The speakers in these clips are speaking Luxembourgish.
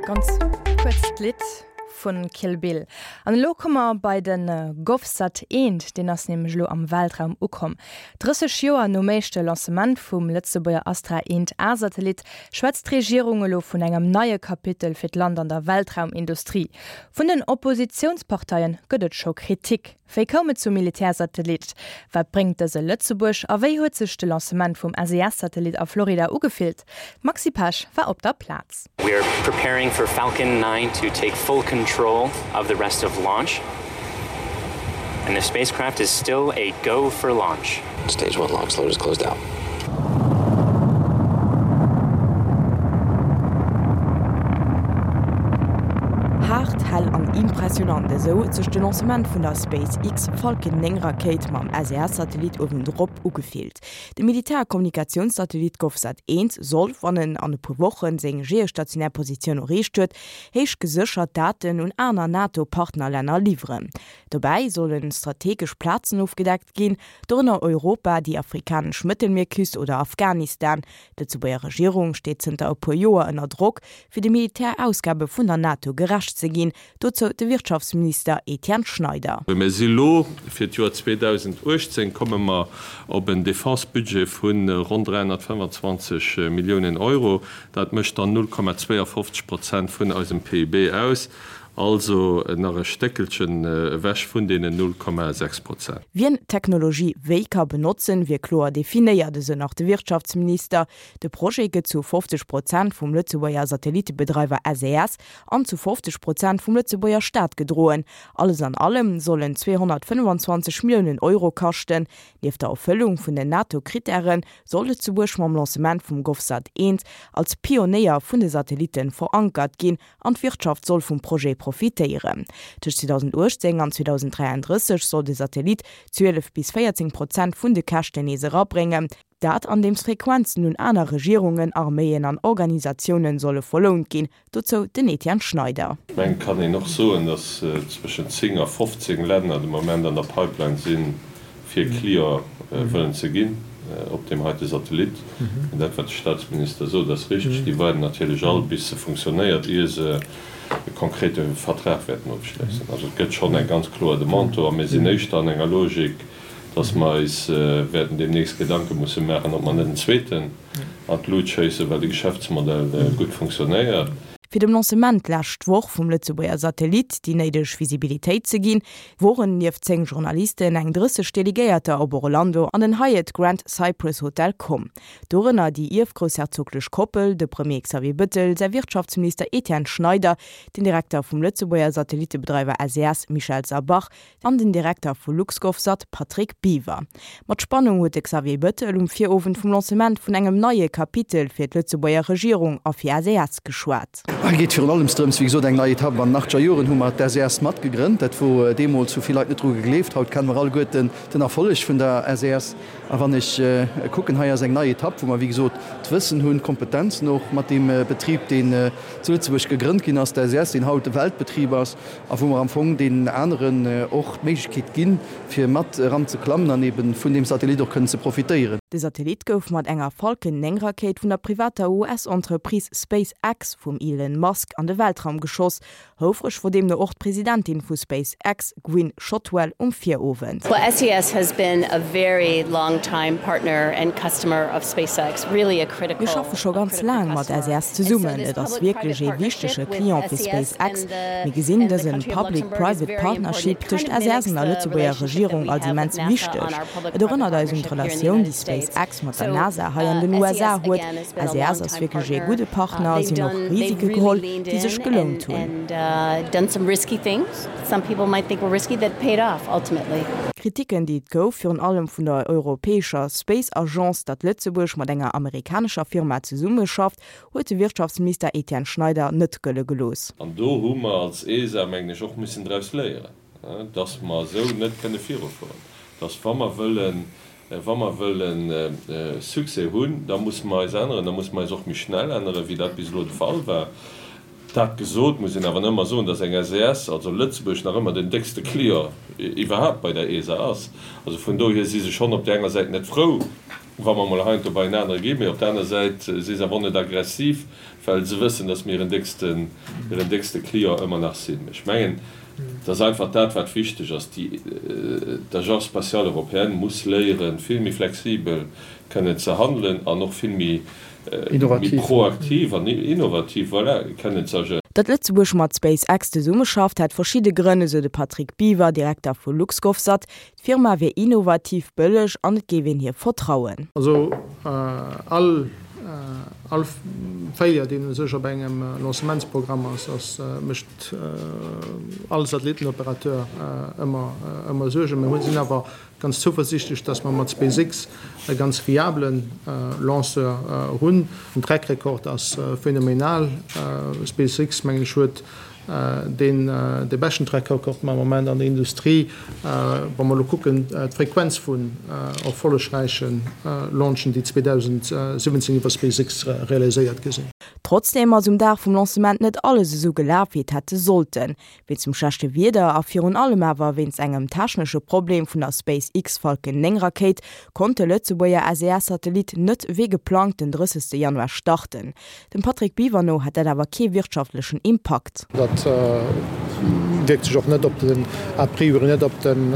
Ganz kuerzt Lidd vun Kill Bill. An elo komme mer bei de GovSat 1, deen ass nämlech elo am Weltraum ukomm. 30 Joer nom éischte Lancement vum Lëtzebuerger Astra 1 A-Satellit schwätzt d'Regierung elo vun engem neie Kapitel fir d'Land an der Weltraumindustrie. Vun den Oppositiounsparteie gëtt et scho Kritik. Wéi koum et zum Militärsatellit? Wat bréngt dëse Lëtzebuerg? A wéi huet sech de Lancement vum SES-Satellit a Florida ugefillt? D'Maxi Pesch war op der Plaz. We are preparing for Falcon 9 to take full control of the rest of launch and the spacecraft is still a go for launch. Stage one LOX load is closed out. Haart, hell an impressionant, esou huet sech de Lancement vun der SpaceX Falcon 9 Rakéit mam SES-Satellit uewendrop ugefillt. De Militär-Kommunikatiounssatellit GovSat 1 soll, wann en an e puer Woche seng geostationär Positioun erreecht huet, héich geséchert Daten un aner NATO-Partnerlänner liwweren. Dobäi solle strategesch Plazen ofgedeckt ginn, dorënner Europa, déi afrikanesch Mëttelmierküst oder Afghanistan. D'Lëtzebuerger Regierung steet zënter e puer Joer ënner Drock, fir de Militärausgabe vun der NATO gerecht ze ginn. Dozou de Wirtschaftsminister Etienne Schneider. Mir si lo, fir d'Joer 2018 komme mer op en Defense-Budget vu ronn 325 Milliounen Euro. Dat mécht dann 0,52 Prozent vun eisem PIB aus. Also nach e Stéckelchen ewech vun deenen 0,6 Prozent. Wien d'Technologie wéi ka benotzen, wier kloer definéiert, esou nach de Wirtschaftsminister. De Projet gëtt zu 50 Prozent vum Lëtzebuerger Satellittebedreiwer SES an zu 50 Prozent vum Lëtzebuerger Staat gedroen. Alles an allem soll en 225 Milliounen Euro kaschten. Nieft der Erfëllung vun den NATO-Krittäre soll Lëtzebuerg mam Lancement vum GovSat 1 als Pionéier vun de Satellitte verankert ginn An d'Wirtschaft soll vum Projet profitéieren. Tëscht 2018 an 2033 soll de Satellit 12 bis 14 Prozent vun de Käschten nees erabréngen. Dat andeems Frequenzen un aner Regierungen, Arméien an Organisatiounen solle verlount ginn. Dozou den Etienne Schneider. Ech mengen, et kann een och soen, datt zwëschen 10 a 15 Länner de Moment an der Pipeline sinn, fir Client wëllen ze ginn op deem heite Satellit. An dat, wat de Statsminister sot, ass richteg. Déi waarden natierlech all, bis se funktionéiert, ier se e konkrete Vertrag wäerten ofschléissen. Also et gëtt schonn eng ganz kloer Demande do. A mir sinn éischter an enger Logik, dass mer eis wäerten deemnächst Gedanke musse maachen, ob mer net en zweeten an d'Lut schéissen, well de Geschäftsmodell gutt funktionéiert. Fir dem Lancement d'lescht Woch vum Lëtzebuerger Satellit déi néideg Visibilitéit ze ginn, woren nieft 10 Journalisten eng 30 Delegéierter op Orlando an den Hyatt Grand Cypress Hotel komm. Dorënner déi ierfgroussherzoglech Koppel, de Premier Xavier Bëttel, säi Wirtschaftsminister Etienne Schneider, den Direkter vum Lëtzebuerger Satellittebedreiwer SES Michel Sabach, An den Direkter vu LuxGovSat Patrick Biwer. Mat Spannung huet de Xavier Bettel um Virowend vum Lancement vun engem neie Kapitel fir d'Lëtzebuerger Regierung a fir SES geschwat. Hei geet virun allems drëms, wéi gesot, eng nei Etapp. An den achtzeger Joren hu mer d'SES matgegrënnt. Dat wor deemools, hu vill Leit net dru gegleeft. Haut kenne mer alleguerten den Erfolleg vun der SES. A wann ech kucken, hei ass eng nei Etapp, wou mer, wéi gesot, d'Wëssen hunn, d'Kompetenzen och mat deem Betrib, deen zu Lëtzebuerg gegrënnt ginn ass, d'SES, deen haut e Weltbetrib ass, a wou mer am Fong deenen aneren och d'Méiglechkeet ginn, fir mat eran ze klammen an eben vun deem Satellit och kënnen ze profitéieren. De Satellit gouf mat enger Falcon 9 Rakéit vun der privater US-Entreprise SpaceX vum Elon Musk an de Weltraum geschoss. Houfreg wor deemno och d'Presidentin vu SpaceX, Gwynne Shotwell, um Virowend. Well SES has been a very long time partner and customer of SpaceX, really a critical Mir schaffe scho ganz laang mat SES zesummen. Et ass wierklech ee wichtege Client fir SpaceX. Mir gesinn dësen Public-Private Partnership tëscht SES an der Lëtzebuerger Regierung als immens wichteg. Et erënnert eis un d'Relatioun, déi SpaceX mat der NASA hei an den USA huet. SES ass wierklech ee gudde Partner a si hunn och Risike geholl, déi sech gelount hunn. D'Kritiken, déi et gouf, virun allem vun der europäescher Space Agence, datt Lëtzebuerg mat enger amerikanescher Firma zesummeschafft, huet de Wirtschaftsminister Etienne Schneider net gëlle gelooss. An do hu mer als ESA, mengen ech, och missen draus léieren, dass mer esou net kënne virufueren, dass wa mer wëllen, wa mer wëlle Succès hunn, da musse mer eis änneren, da musse mer eis och méi schnell änneren, wéi dat bis elo de Fall war. Dat gesot, muss een awer ëmmer soen, dass eng SES, also Lëtzebuerg, nach ëmmer den déckste Client iwwerhaapt bei der ESA ass. Also vun dohier si se schonn op där enger Säit net frou, wa mer emol heiansdo bei en anere ginn, mee op der aner Säit si se awer och net aggressiv, well se wëssen, dass mir hiren décksten, hiren déckste Client ëmmer nach sinn. Ech mengen, et ass einfach dat, wat wichteg ass, déi, d'Agence spatiale européenne muss léieren, vill méi flexibel kënnen ze handelen an och vill méi, méi proaktiv an innovativ, voilà, kënnen ze agéieren. Datt Lëtzebuerg mat SpaceX zesummeschafft, hätt verschidde Grënn, esou de Patrick Biewer, Direkter vu LuxGovSat. D'Firma wier innovativ, bëlleg an et géif een hir vertrauen. Also all all Failure, deen u sech op engem Lancementsprogramm ass, ass mécht all Satellittenoperateur ëmmer ëmmer Suergen. Mir hunn sinn awer ganz zouversiichtlech, datt mer mat SpaceX e ganz fiabele Lanceur hunn. Den Track Record ass phänomenal. SpaceX, mengen ech, huet deen dee beschten Track Record am Moment an der Industrie, wa mer elo kucken d'Frequenz vun erfollegräiche Launchen, déi 2017 iwwer SpaceX realiséiert gi sinn. Trotzdeem ass um Dag vum Lancement net alles esou gelaf, wéi et hätte sollten. Wéinst dem schlechte Wieder a virun allem awer wéinst engem technesche Problem vun der SpaceX Falcon 9 Rakéit konnt de Lëtzebuerger SES-Satellit net wéi geplangt den 30 Januar starten. Dem Patrick Biwer no hätt dat awer kee wirtschaftlechen Impakt. Dat wierkt sech och net op den, a priori net op den,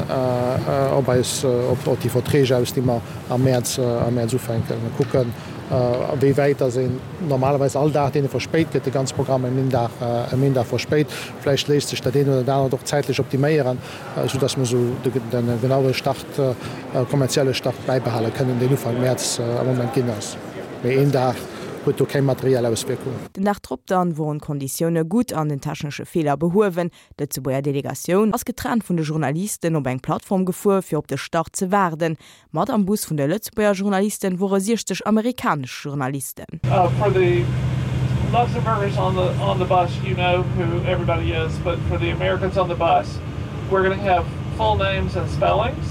op eis, op déi Verträg aus, déi mer am Mäerz, am Mäerz ufänken. Mir kucken, a wéi wäit dass een normalerweis all Dag, deen e verspéit gëtt, de ganze Programm ëm een Dag, ëm een Dag verspéit. Vläicht léisst sech dat eent oder dat anert och zäitlech optiméieren, esou dass mer esou de genaue Start, kommerzielle Start bäibehale kënnen, deen Ufank Mäerz am Moment ginn ass. Mee een Dag huet do keng materiell Auswierkung. Den Dag drop dann woren d'Konditioune gutt an den technesche Feeler behuewen. D'Lëtzebuerger Delegatioun ass getrennt vun de Journalisten op eng Plattform gefuer fir op de Start ze waarden. Mat am Bus vun de Lëtzebuerger Journalisten wore 60 amerikanesch Journalisten. For the Luxembourgers on the on the bus you know who everybody is, but for the Americans on the bus we're gonna have full names and spellings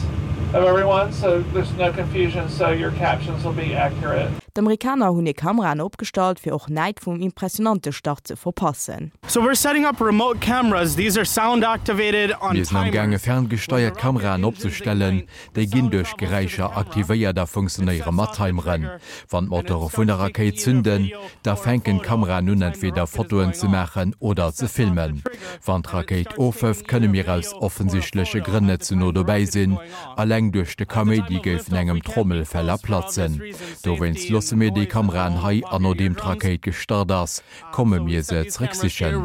of everyone so there's no confusion so your captions will be accurate. D'Amerikaner hunn hir Kameraen opgestallt, fir och näit vum impressionante Start ze verpassen. So we're setting up remote cameras, these are sound activated on Mir sinn am gaange timers. ferngesteiert Kameraen opzestellen, Déi ginn duerch Geräischer aktivéiert a funktionéiere mat Timeren. Wann d'Motore vun der Rakéit zünden, da fänken d'Kameraen un entweder Fotoen ze maachen oder ze filmen. Wann d'Rakéit ofhëft, kënne mir aus offensichtleche Grënn net ze no dobäi sinn. Alleng duerch de Kaméidi géifen engem d'Trommelfeller platzen. Dowéinst loosse mir déi Kameraen hei an nodeem d'Rakéit gestart ass, komme mir se zréck sichen.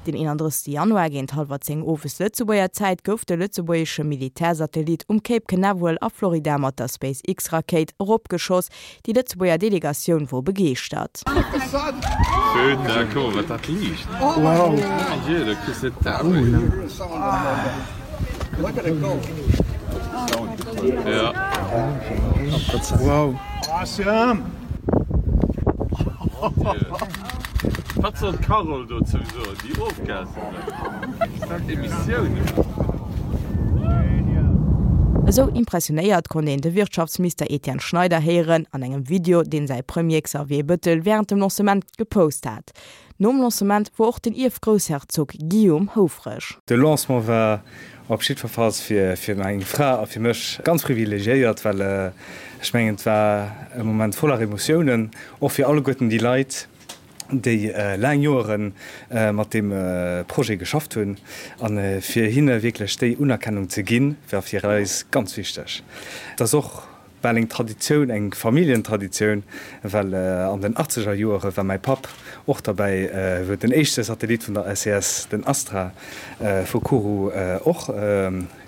Den 31 Januar géint hallwer 10 owes Lëtzebuerger Zäit gouf de lëtzebuergesche Militärsatellit um Cape Canaveral a Florida mat der SpaceX-Rakéit eropgeschoss. Déi Lëtzebuerger Delegatioun wor begeeschtert. Wat soll d'Carole dozou soen, déi ofgasen huet? Dat Emissioun. Esou impressionéiert konnt een de Wirtschaftsminister Etienne Schneider héieren an engem Video, deen säi Premier Xavier Bëttel wärend dem Lancement gepost hat. Nom Lancement wor och den Ierfgroussherzog Guillaume houfreg. De Lancement war Op jiddwerfalls fir meng Fra a fir mech ganz privilegiéiert, well ech mengen, et war e Moment voller Emotiounen, och fir alleguerten déi Leit, déi laang Joere mat deem Projet geschafft hunn. A fir hinne wierklech déi Unerkennung ze ginn, war fir eis ganz wichteg. Et ass och bal eng Traditioun, eng Familljentraditioun, well an den achtzeger Joere war mäi Papp och derbäi, wou den éischte Satellit vun der SES, den Astra vu Kourou, och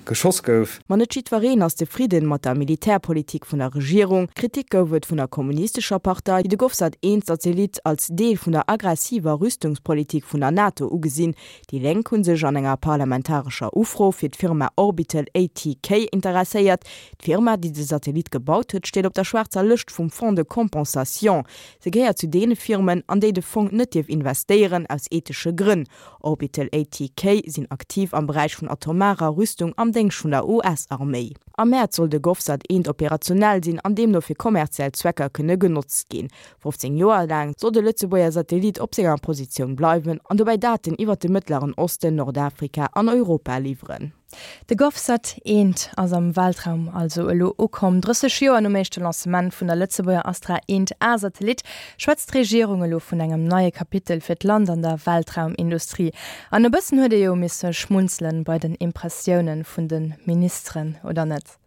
geschoss gouf. Ma net jiddwereen ass zefridden mat der Militärpolitik vun der Regierung. Kritik gouf et vun der kommunistescher Partei, déi de Govsat 1 Satellit als Deel vun der aggressiver Rüstungspolitik vun der NATO ugesinn. Déi Lénk hu sech an enger parlamentarescher Ufro fir d'Firma Orbital ATK interesséiert, D'Firma, déi de Satellit gebaut huet, steet op der schwaarzer Lëscht vum Fonds de compensation. Se gehéiert zu deene Firmen, an déi de Fong net dierf investéieren, aus ethesche Grënn. Orbital ATK sinn aktiv am Beräich vun atomarer Rüstung am. am Déngscht vun der US-Arméi. Am Mäerz soll de GovSat 1 operationell sinn an deemno fir kommerziell Zwecker kënne genotzt ginn. 15 Joer laang soll de Lëtzebuerger Satellit op senger Positioun bleiwen an dobäi Daten iwwer de Mëttleren Osten, Nordafrika an Europa liwweren. De GovSat 1 ass am Weltraum also elo ukomm. 30 Joer nom éischte Lancement vun der Lëtzebuerger Astra 1 A-Satellit schwätzt d'Regierung elo vun engem neie Kapitel fir d'Land an der Weltraumindustrie. An e bëssen huet ee jo misse schmunzelen bei den Impressiounen vun de Ministeren, oder net?